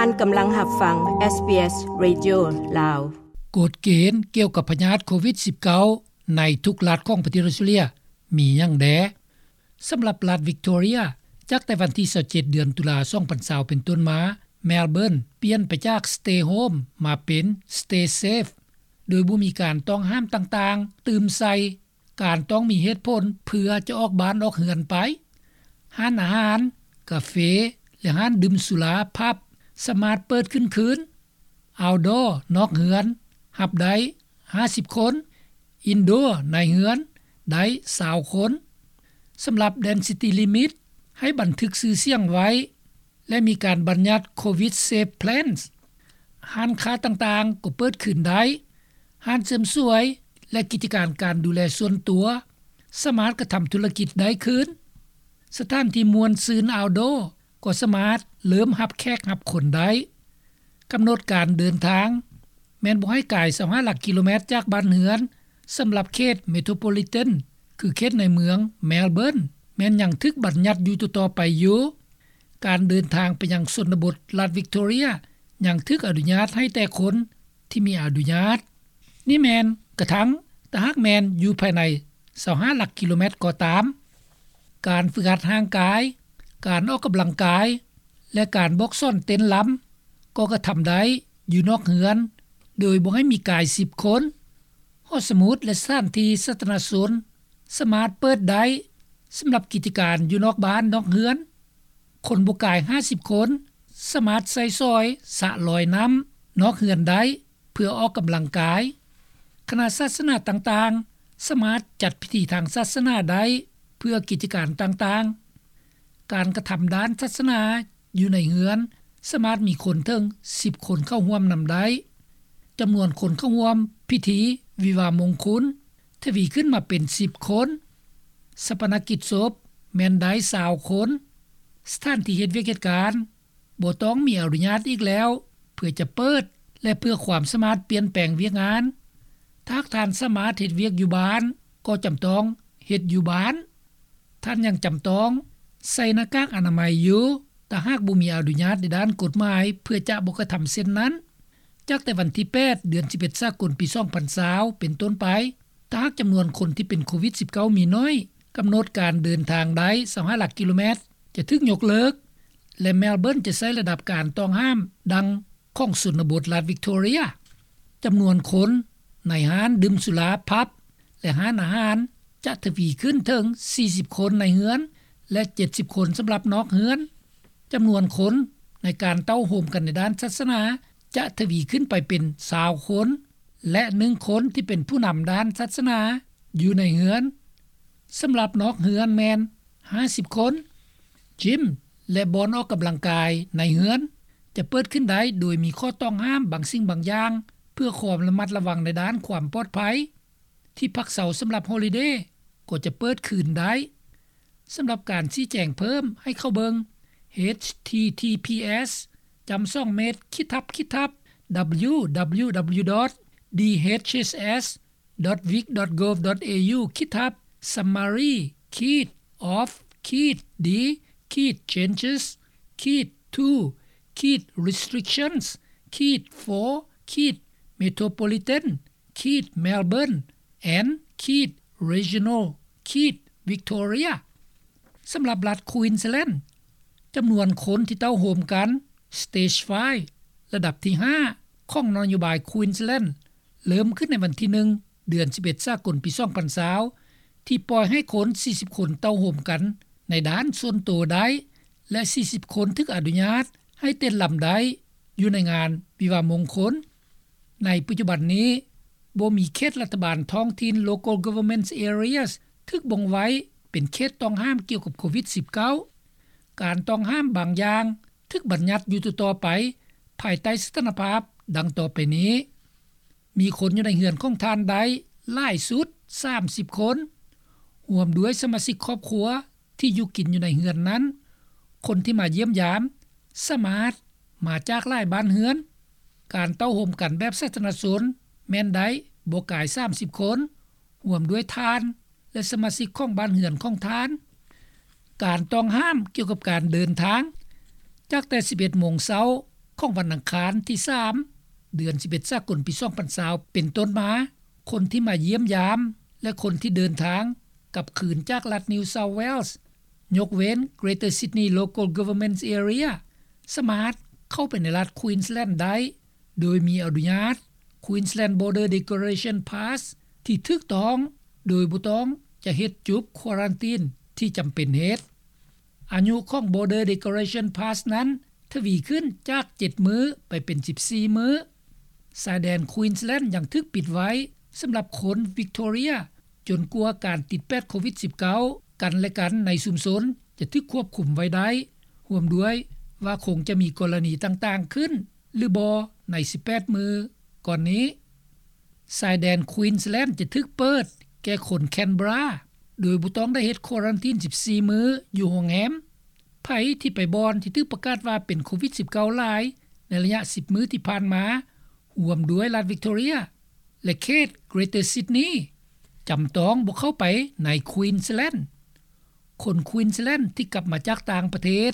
ທ່ານກຳລັງຮັບຟັງ ເອສບີເອສ ເຣດິໂອ ລາວ. ກົດເກນກ່ຽວກັບພະຍາດໂຄວິດສິບເກົ້າ ໃນທຸກລັດຂອງປະເທດອອສເຕຣເລັຽ ມີຫຍັງແດ່? ສຳລັບລັດວິກຕໍເຣຍ ຈາກແຕ່ວັນທີຊາວເຈັດ ເດືອນຕຸລາ ສອງພັນຊາວ ເປັນຕົ້ນມາ, ແມລເບີນ ປ່ຽນໄປຈາກ Stay Home ມາເປັນ Stay Safe ໂດຍບໍ່ມີການຕ້ອງຫ້າມຕ່າງໆຕື່ມໃສ່ ການຕ້ອງມີເຫດຜົນເພື່ອຈະອອກບ້ານອອກເຮືອນໄປ. ຮ້ານອາຫານ, ກາເຟ ແລະ ຮ້ານດື່ມສຸລາ, ຜັບ ສາມາດເປີດຂຶ້ນຄືນ. Outdoor ນອກເຮືອນ ຮັບໄດ້ຫ້າສິບຄົນ, Indoor ໃນເຮືອນໄດ້ຊາວຄົນ. ສຳລັບ Density Limit ໃຫ້ບັນທຶກຊື່ສຽງໄວ້ ແລະ ມີການບັນຍັດ Covid Safe Plans. ຮ້ານຄ້າຕ່າງໆກໍເປີດຄືນໄດ້. ຮ້ານເສີມສວຍ ແລະ ກິດຈະການການດູແລສ່ວນຕົວ ສາມາດກະທຳທຸລະກິດໄດ້ຄືນ. ສະຖານທີ່ມ່ວນຊື່ນ Outdoor ກໍສາມາດເລີ່ມຮັບແຂກຮັບຄົນໄດ້. ກຳນົດການເດີນທາງ ແມ່ນບໍ່ໃຫ້ກາຍຊາວຫ້າຫຼັກກິໂລແມັດຈາກບ້ານເຮືອນ. ສຳລັບເຂດ Metropolitan ຄືເຂດໃນເມືອງ Melbourne ແມ່ນຍັງຖືກບັນຍັດຢູ່ຕໍ່ໆໄປຢູ່. ການເດີນທາງໄປຍັງຊົນນະບົດລັດວິກຕໍເຣຍ ຍັງຖືກອະນຸຍາດໃຫ້ແຕ່ຄົນທີ່ມີອະນຸຍາດ. ນີ້ແມ່ນກະທັ່ງຖ້າຫາກແມ່ນຢູ່ພາຍໃນຊາວຫ້າຫຼັກກິໂລແມັດກໍຕາມ. ການຝຶກຫັດຮ່າງກາຍ, ການອອກກຳລັງກາຍ ແລະ ການບອກສອນເຕັ້ນລຳ ກໍກະທຳໄດ້ຢູ່ນອກເຮືອນ ໂດຍບໍ່ໃຫ້ມີກາຍສິບຄົນ. ຫໍສະໝຸດ ແລະ ສະຖານທີ່ສາທາລະນະຊົນສາມາດເປີດໄດ້. ສຳລັບກິດຈະການຢູ່ນອກບ້ານນອກເຮືອນ, ຄົນບໍ່ກາຍຫ້າສິບຄົນສາມາດໃຊ້ສອຍສະລອຍນ້ຳນອກເຮືອນໄດ້ ເພື່ອອອກກຳລັງກາຍ. ຄະນະສາສະໜາຕ່າງໆສາມາດຈັດພິທີທາງສາສະໜາໄດ້ເພື່ອກິດຈະການຕ່າງໆ. ການກະທຳດ້ານສາສະໜາຢູ່ໃນເຮືອນສາມາດມີຄົນເຖິງສິບຄົນເຂົ້າຮ່ວມນຳໄດ້. ຈຳນວນຄົນເຂົ້າຮ່ວມພິທີວິວາມງຄຸນທະວີຂຶ້ນມາເປັນສິບຄົນ. ຊາປະນະກິດສົບແມ່ນໄດ້ຊາວຄົນ. ສະຖານທີ່ເຮັດວຽກເຮັດການ ບໍ່ຕ້ອງມີອະນຸຍາດອີກແລ້ວ ເພື່ອຈະເປີດ ແລະ ເພື່ອຄວາມສາມາດປ່ຽນແປງວຽກງານ. ຖ້າທ່ານສາມາດເຮັດວຽກຢູ່ບ້ານ ກໍຈຳຕ້ອງເຮັດຢູ່ບ້ານ. ທ່ານຍັງຈຳຕ້ອງໃສ່ໜ້າກາກອະນາໄມຢູ່ ຖ້າຫາກບໍ່ມີອະນຸຍາດໃນດ້ານກົດໝາຍ ເພື່ອຈະບໍ່ກະທຳເຊັ່ນນັ້ນ. ຈາກແຕ່ວັນທີແປດ ເດືອນສິບເອັດ ສາກົນ ປີສອງພັນຊາວ ເປັນຕົ້ນໄປ, ຖ້າຫາກຈຳນວນຄົນທີ່ເປັນໂຄວິດສິບເກົ້າມີໜ້ອຍ, ກຳນົດການເດີນທາງໄດ້ຊາວຫ້າຫຼັກກິໂລແມັດ ຈະຖືກຍົກເລີກ ແລະ ແມລເບີນຈະໃຊ້ລະດັບການຕ້ອງຫ້າມດັ່ງຂອງຊົນນະບົດລັດວິກຕໍເຣຍ. ຈຳນວນຄົນໃນຮ້ານດື່ມສຸລາ, ຜັບ ແລະ ຮ້ານອາຫານ ຈະທະວີຂຶ້ນເຖິງສີ່ສິບຄົນໃນເຮືອນ ແລະ ເຈັດສິບຄົນສຳລັບນອກເຮືອນ. ຈຳນວນຄົນໃນການເຕົ້າໂຮມກັນໃນດ້ານສາສະໜາ ຈະທະວີຂຶ້ນໄປເປັນຊາວຄົນ ແລະ ໜຶ່ງຄົນທີ່ເປັນຜູ້ນຳດ້ານສາສະໜາຢູ່ໃນເຮືອນ. ສຳລັບນອກເຮືອນແມ່ນຫ້າສິບຄົນ. ຢິມ ແລະ ບ່ອນອອກກຳລັງກາຍໃນເຮືອນຈະເປີດຂຶ້ນໄດ້ ໂດຍມີຂໍ້ຕ້ອງຫ້າມບາງສິ່ງບາງຢ່າງ ເພື່ອຄວາມລະມັດລະວັງໃນດ້ານຄວາມປອດໄພ. ທີ່ພັກເຊົາສຳລັບຮອລິເດກໍຈະເປີດຄືນໄດ້. ສຳລັບການຊີ້ແຈງເພີ່ມໃຫ້ເຂົ້າເບິ່ງ ເອດເອັດທີທີພີເອັດ ຈ້ຳສອງເມັດ ຂີດທັບ ຂີດທັບ www.dhss.vic.gov.au ຂີດທັບ summary ຂີດ of ຂີດ d ຂີດ changes ຂີດ to ຂີດ restrictions ຂີດ for ຂີດ metropolitan ຂີດ Melbourne and ຂີດ regional ຂີດ Victoria. ສຳລັບລັດ Queensland ຈຳນວນຄົນທີ່ເຕົ້າໂຮມກັນ Stage five ລະດັບທີຫ້າ ຂອງນະໂຍບາຍ Queensland ເລີ່ມຂຶ້ນໃນວັນທີໜຶ່ງ ເດືອນສິບເອັດ ສາກົນ ປີສອງພັນຊາວ ທີ່ປ່ອຍໃຫ້ຄົນສີ່ສິບຄົນເຕົ້າໂຮມກັນໃນດ້ານສ່ວນໂຕໄດ້ ແລະ ສີ່ສິບຄົນຖືກອະນຸຍາດໃຫ້ເຕັ້ນລຳໄດ້ຢູ່ໃນງານວິວາມງຄົນ. ໃນປັດຈຸບັນນີ້ ບໍ່ມີເຂດລັດຖະບານທ້ອງຖິ່ນ Local Government Areas ຖືກບົ່ງໄວ້ເປັນເຂດຕ້ອງຫ້າມກ່ຽວກັບໂຄວິດສິບເກົ້າ. ການຕ້ອງຫ້າມບາງຢ່າງຖືກບັນຍັດຢູ່ຕໍ່ໆໄປ ພາຍໃຕ້ສະຖານະພາບດັ່ງຕໍ່ໄປນີ້. ມີຄົນຢູ່ໃນເຮືອນຂອງທ່ານໄດ້ຫຼາຍສຸດສາມສິບຄົນ, ຮ່ວມດ້ວຍສະມາຊິກຄອບຄົວທີ່ຢູ່ກິນຢູ່ໃນເຮືອນນັ້ນ. ຄົນທີ່ມາຢ້ຽມຢາມສາມາດມາຈາກຫຼາຍບ້ານເຮືອນ. ການເຕົ້າໂຮມກັນແບບສາທາລະນະຊົນແມ່ນໄດ້ບໍ່ກາຍສາມສິບຄົນ, ຮ່ວມດ້ວຍທ່ານ ແລະ ສະມາຊິກຂອງບ້ານເຮືອນຂອງທ່ານ. ການຕ້ອງຫ້າມກ່ຽວກັບການເດີນທາງ ຈາກແຕ່ສິບເອັດໂມງເຊົ້າ ຂອງວັນອັງຄານທີສາມ ເດືອນສິບເອັດສາກົນປີສອງພັນຊາວເປັນຕົ້ນມາ, ຄົນທີ່ມາຢ້ຽມຢາມ ແລະ ຄົນທີ່ເດີນທາງກັບຄືນຈາກລັດ New South Wales ຍົກເວັ້ນ Greater Sydney Local Government Area ສາມາດເຂົ້າໄປໃນລັດ Queensland ໄດ້ ໂດຍມີອະນຸຍາດ Queensland Border Declaration Pass ທີ່ຖືກຕ້ອງ ໂດຍບໍ່ຕ້ອງຈະເຮັດຈຸບ quarantine ທີ່ຈຳເປັນເຮັດ. ອາຍຸຂອງ Border Declaration Pass ນັ້ນທະວີຂຶ້ນຈາກເຈັດມື້ໄປເປັນສິບສີ່ມື້. ຊາຍແດນ Queensland ຍັງຖືກປິດໄວ້ສຳລັບຄົນ Victoria ຈົນກວ່າການຕິດແປດໂຄວິດສິບເກົ້າ ກັນແລະກັນໃນຊຸມຊົນຈະຖືກຄວບຄຸມໄວ້ໄດ້, ຮ່ວມດ້ວຍວ່າຄົງຈະມີກໍລະນີຕ່າງໆຂຶ້ນ ຫຼືບໍ່ໃນສິບແປດມື້ກ່ອນນີ້. ຊາຍແດນ Queensland ຈະຖືກເປີດແກ່ຄົນ Canberra ໂດຍບໍ່ຕ້ອງໄດ້ເຮັດ quarantine ສິບສີ່ມື້ຢູ່ໂຮງແຮມ. ໃຜທີ່ໄປບ່ອນທີ່ຖືກປະກາດວ່າເປັນໂຄວິດສິບເກົ້າຫຼາຍໃນໄລຍະສິບມື້ທີ່ຜ່ານມາ, ຮ່ວມດ້ວຍລັດ Victoria ແລະ ເຂດ Greater Sydney ຈຳຕ້ອງບໍ່ເຂົ້າໄປໃນ Queensland. ຄົນ Queensland ທີ່ກັບມາຈາກຕ່າງປະເທດ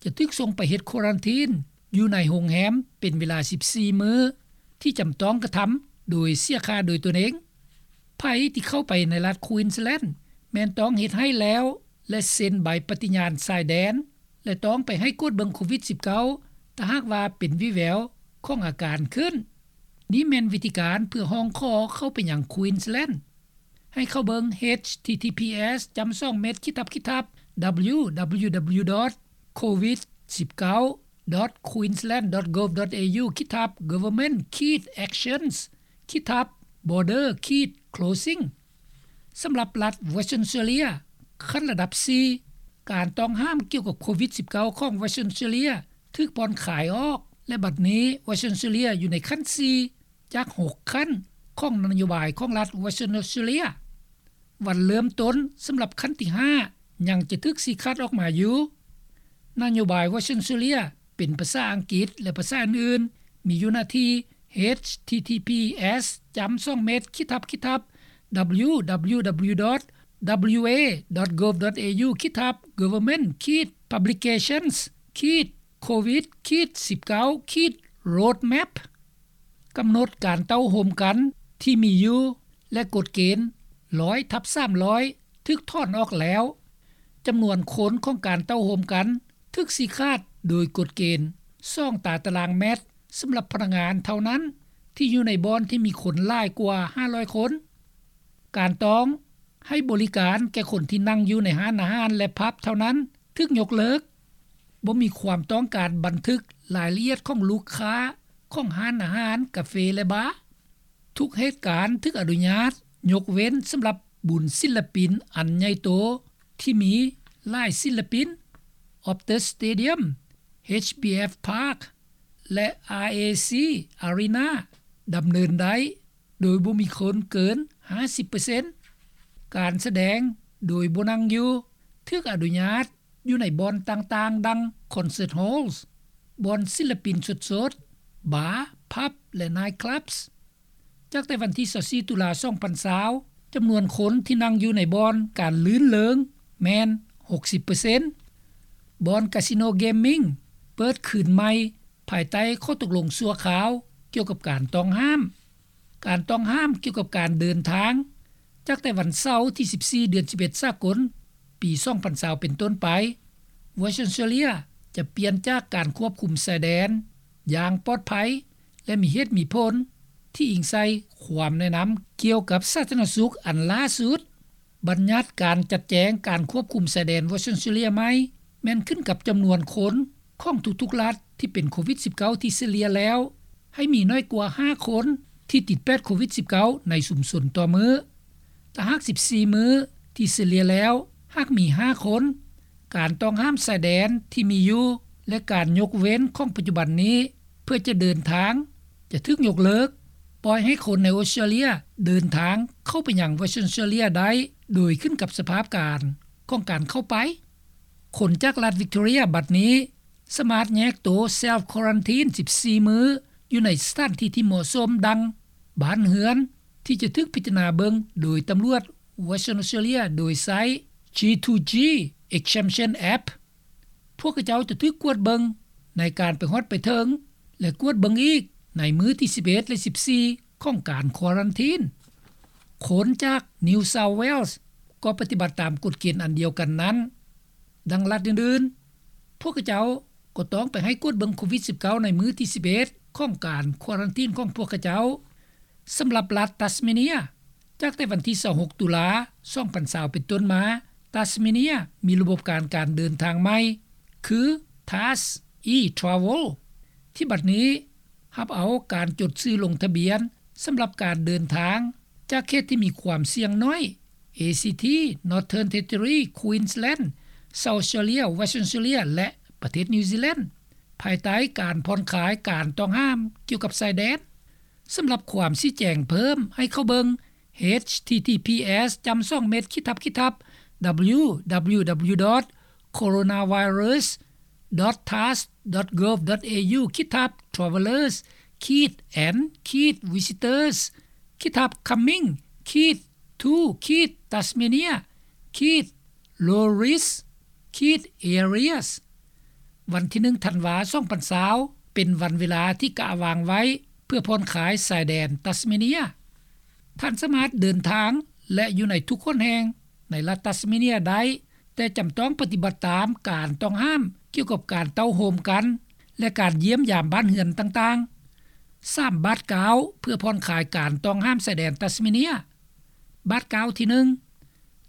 ຈະຖືກສົ່ງໄປເຮັດ quarantine ຢູ່ໃນໂຮງແຮມເປັນເວລາສິບສີ່ມື້ ທີ່ຈຳຕ້ອງກະທຳໂດຍເສຍຄ່າໂດຍຕົນເອງ. ໃຜທີ່ເຂົ້າໄປໃນລັດ Queensland ແມ່ນຕ້ອງເຮັດໃຫ້ແລ້ວ ແລະ ເຊັນໃບປະຕິຍານຊາຍແດນ ແລະ ຕ້ອງໄປໃຫ້ກວດເບິ່ງໂຄວິດສິບເກົ້າ ຖ້າຫາກວ່າເປັນວີແວວຂອງອາການຂຶ້ນ. ນີ້ແມ່ນວິທີການເພື່ອຮ້ອງຂໍເຂົ້າໄປຍັງ Queensland. ໃຫ້ເຂົ້າເບິ່ງ https://www.covid19.queensland.gov.au/government-actions/border-closing ສຳລັບລັດ Western Australia ຂັ້ນລະດັບສີ່ ການຕ້ອງຫ້າມກ່ຽວກັບໂຄວິດສິບເກົ້າ ຂອງ Western Australia ຖືກຜ່ອນຄາຍອອກ ແລະ ບັດນີ້ Western Australia ຢູ່ໃນຂັ້ນສີ່ ຈາກຫົກຂັ້ນຂອງນະໂຍບາຍຂອງລັດ Western Australia. ວັນເລີ່ມຕົ້ນສຳລັບຂັ້ນທີຫ້າ ຍັງຈະຖືກຊີ້ຂາດອອກມາຢູ່. ນະໂຍບາຍ Western Australia ເປັນພາສາອັງກິດ ແລະ ພາສາອື່ນໆ ມີຢູ່ໜ້າທີ່ https://www.wa.gov.au/government-publications- covid-19-roadmap ກຳນົດການເຕົ້າໂຮມກັນທີ່ມີຢູ່ ແລະ ກົດເກນ ໜຶ່ງຮ້ອຍທັບສາມຮ້ອຍ ຖືກຖອນອອກແລ້ວ. ຈຳນວນຄົນຂອງການເຕົ້າໂຮມກັນຖືກຊີ້ຂາດໂດຍກົດເກນ ສອງຕາຕະລາງແມັດ ສຳລັບພະນັກງານເທົ່ານັ້ນ ທີ່ຢູ່ໃນບ່ອນທີ່ມີຄົນຫຼາຍກວ່າຫ້າຮ້ອຍຄົນ. ການຕ້ອງໃຫ້ບໍລິການແກ່ຄົນທີ່ນັ່ງຢູ່ໃນຮ້ານອາຫານ ແລະ ຜັບເທົ່ານັ້ນ ຖືກຍົກເລີກ. ບໍ່ມີຄວາມຕ້ອງການບັນທຶກລາຍລະອຽດຂອງລູກຄ້າຂອງຮ້ານອາຫານ, ກາເຟ ແລະ ບາ. ທຸກເຫດການຖືກອະນຸຍາດ ຍົກເວັ້ນສຳລັບບຸນສິນລະປິນອັນໃຫຍ່ໂຕ ທີ່ມີຫຼາຍສິນລະປິນ, Optus Stadium, HBF Park ແລະ RAC Arena ດຳເນີນໄດ້ ໂດຍບໍ່ມີຄົນເກີນຫ້າສິບເປີເຊັນ. ການສະແດງໂດຍບໍ່ນັ່ງຢູ່ ຖືກອະນຸຍາດຢູ່ໃນບ່ອນຕ່າງໆ ດັ່ງ concert halls, ບ່ອນສິນລະປິນສົດໆ, ບາ, ຜັບ ແລະ night clubs. ຈາກແຕ່ວັນທີຊາວສີ່ ຕຸລາ ສອງພັນຊາວ ຈຳນວນຄົນທີ່ນັ່ງຢູ່ໃນບ່ອນການລື່ນເລີງແມ່ນຫົກສິບເປີເຊັນ. ບ່ອນກາສິໂນເກມມິງເປີດຄືນໃໝ່ ພາຍໃຕ້ຂໍ້ຕົກລົງຊົ່ວຄາວກ່ຽວກັບການຕ້ອງຫ້າມ. ການຕ້ອງຫ້າມກ່ຽວກັບການເດີນທາງ ຈາກແຕ່ວັນເສົາທີສິບສີ່ ເດືອນສິບເອັດສາກົນ ປີສອງພັນຊາວເປັນຕົ້ນໄປ, Western Australia ຈະປ່ຽນຈາກການຄວບຄຸມຊາຍແດນຢ່າງປອດໄພ ແລະ ມີເຫດມີຜົນ ທີ່ອີງໃສ່ຄວາມແນະນຳກ່ຽວກັບສາທາລະນະສຸກອັນລ່າສຸດ. ບັນຍັດການຈັດແຈງການຄວບຄຸມຊາຍແດນ Western Australia ໃໝ່ ແມ່ນຂຶ້ນກັບຈຳນວນຄົນຂອງທຸກໆລັດທີ່ເປັນໂຄວິດສິບເກົ້າ ທີ່ສະເລ່ຍແລ້ວ ໃຫ້ມີໜ້ອຍກວ່າຫ້າຄົນທີ່ຕິດແປດໂຄວິດສິບເກົ້າ ໃນຊຸມຊົນຕໍ່ມື້. ຖ້າຫາກສິບສີ່ມື້ທີ່ສະເລ່ຍແລ້ວ ຫາກມີຫ້າຄົນ, ການຕ້ອງຫ້າມຊາຍແດນທີ່ມີຢູ່ ແລະ ການຍົກເວັ້ນຂອງປັດຈຸບັນນີ້ ເພື່ອຈະເດີນທາງຈະຖືກຍົກເລີກ, ປ່ອຍໃຫ້ຄົນໃນອອສເຕຣເລຍເດີນທາງເຂົ້າໄປຍັງ Western Australia ໄດ້ ໂດຍຂຶ້ນກັບສະພາບການຂອງການເຂົ້າໄປ. ຄົນຈາກລັດ Victoria ບັດນີ້ສາມາດແຍກໂຕ self quarantine ສິບສີ່ມື້ ຢູ່ໃນສະຖານທີ່ທີ່ເໝາະສົມ ດັ່ງ ບ້ານເຮືອນທີ່ຈະຖືກພິຈາລະນາເບິ່ງໂດຍຕຳຫຼວດ Western Australia ໂດຍໃຊ້ G two G Exemption App. ພວກເຂົາເຈົ້າຈະຖືກກວດເບິ່ງໃນການໄປຮອດໄປເຖິງ ແລະກວດເບິ່ງອີກໃນມື້ທີສິບເອັດ ແລະສິບສີ່ຂອງການຄວາຣັນທີນ. ຄົນຈາກ New South Wales ກໍປະຕິບັດຕາມກົດເກນອັນດຽວກັນນັ້ນ. ດັ່ງລັດອື່ນໆ ພວກເຂົາເຈົ້າກໍຕ້ອງໄປໃຫ້ກວດເບິ່ງໂຄວິດສິບເກົ້າໃນມື້ທີສິບເອັດຂອງການຄວາຣັນທີນຂອງພວກເຂົາເຈົ້າ. ສຳລັບລັດ Tasmania ຈາກແຕ່ວັນທີຊາວຫົກ ຕຸລາ ສອງພັນຊາວ ເປັນຕົ້ນມາ Tasmania ມີລະບົບການການເດີນທາງໃໝ່ ຄື TARS e-Travel ທີ່ບັດນີ້ຮັບເອົາການຈົດຊື່ລົງທະບຽນສຳລັບການເດີນທາງຈາກເຂດທີ່ມີຄວາມສ່ຽງໜ້ອຍ ACT, Northern Territory, Queensland, South Australia, Western Australia ແລະ ປະເທດ New Zealand ພາຍໃຕ້ການຜ່ອນຄາຍການຕ້ອງຫ້າມກ່ຽວກັບຊາຍແດນ. ສຳລັບຄວາມຊີ້ແຈງເພີ່ມໃຫ້ເຂົ້າເບິ່ງ https ຈ້ຳສອງເມັດ ຂີດທັບ ຂີດທັບ www.coronavirus.gov.au/travellers/and/visitors/coming-to-tasmania-low-risk areas. ວັນທີໜຶ່ງ ທັນວາ ສອງພັນຊາວ ເປັນວັນເວລາທີ່ກະວາງໄວ້ເພື່ອຜ່ອນຄາຍຊາຍແດນຕັດສະເມເນຍ. ທ່ານສາມາດເດີນທາງ ແລະ ຢູ່ໃນທຸກຫົນແຫ່ງໃນລັດຕັດສະເມເນຍໄດ້, ແຕ່ຈຳຕ້ອງປະຕິບັດຕາມການຕ້ອງຫ້າມກ່ຽວກັບການເຕົ້າໂຮມກັນ ແລະ ການຢ້ຽມຢາມບ້ານເຮືອນຕ່າງໆ. ສາມບາດກ້າວເພື່ອຜ່ອນຄາຍການຕ້ອງຫ້າມຊາຍແດນຕັດສະເມເນຍ. ບາດກ້າວທີໜຶ່ງ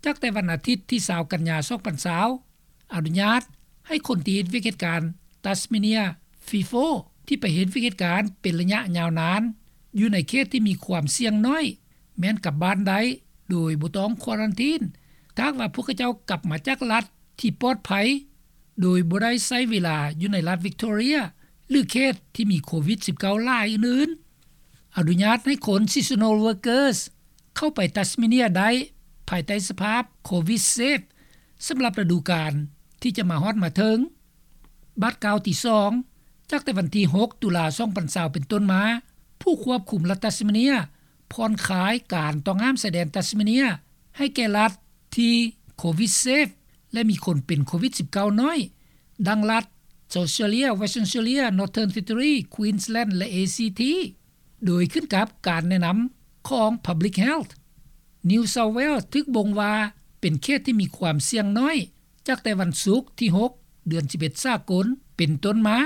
ຈາກແຕ່ວັນອາທິດທີຊາວ ກັນຍາ ສອງພັນຊາວ ອະນຸຍາດໃຫ້ຄົນທີ່ເຮັດວຽກເຮັດການ Tasmania FIFO ທີ່ໄປເຮັດວຽກເຮັດການເປັນໄລຍະຍາວນານ ຢູ່ໃນເຂດທີ່ມີຄວາມສ່ຽງໜ້ອຍ ແມ່ນກັບບ້ານໄດ້ໂດຍບໍ່ຕ້ອງຄວາຣັນທີນ ຖ້າຫາກວ່າພວກເຂົາເຈົ້າກັບມາຈາກລັດທີ່ປອດໄພ ໂດຍບໍ່ໄດ້ໃຊ້ເວລາຢູ່ໃນລັດ Victoria ຫຼື ເຂດທີ່ມີໂຄວິດສິບເກົ້າຫຼາຍອື່ນໆ. ອະນຸຍາດໃຫ້ຄົນ Seasonal Workers ເຂົ້າໄປ Tasmania ໄດ້ ພາຍໃຕ້ສະພາບ Covid Safe ສຳລັບລະດູການທີ່ຈະມາຮອດມາເຖິງ. ບາດກ້າວທີສອງ ຈາກແຕ່ວັນທີຫົກ ຕຸລາ ສອງພັນຊາວ ເປັນຕົ້ນມາ, ຜູ້ຄວບຄຸມລັດ Tasmania ຜ່ອນຄາຍການຕ້ອງຫ້າມຊາຍແດນ Tasmania ໃຫ້ແກ່ລັດທີ່ Covid Safe ແລະ ມີຄົນເປັນໂຄວິດສິບເກົ້າໜ້ອຍ ດັ່ງລັດ South Australia, Western Australia, Northern Territory, Queensland ແລະ ACT ໂດຍຂຶ້ນກັບການແນະນຳຂອງ Public Health. New South Wales ຖືກບົ່ງວ່າເປັນເຂດທີ່ມີຄວາມສ່ຽງໜ້ອຍ ຈາກແຕ່ວັນສຸກທີຫົກ ເດືອນສິບເອັດ ສາກົນ ເປັນຕົ້ນມາ.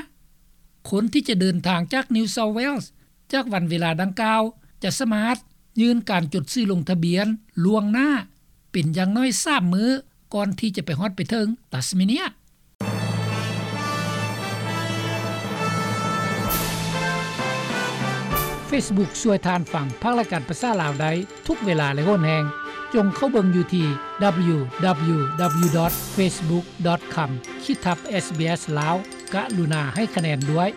ຄົນທີ່ຈະເດີນທາງຈາກ New South Wales ຈາກວັນເວລາດັ່ງກ່າວ ຈະສາມາດຍື່ນການຈົດຊື່ລົງທະບຽນລ່ວງໜ້າ ເປັນຢ່າງໜ້ອຍສາມມື້ ກ່ອນທີ່ຈະໄປຮອດໄປເຖິງ Tasmania. Facebook ຊ່ວຍທ່ານຟັງພາກລາຍການພາສາລາວໄດ້ທຸກເວລາ ແລະ ໂຫນແຮງ. ຈົ່ງເຂົ້າເບິ່ງຢູ່ທີ່ www.facebook.com/sbslao. ກະລຸນາໃຫ້ຄະແນນດ້ວຍ.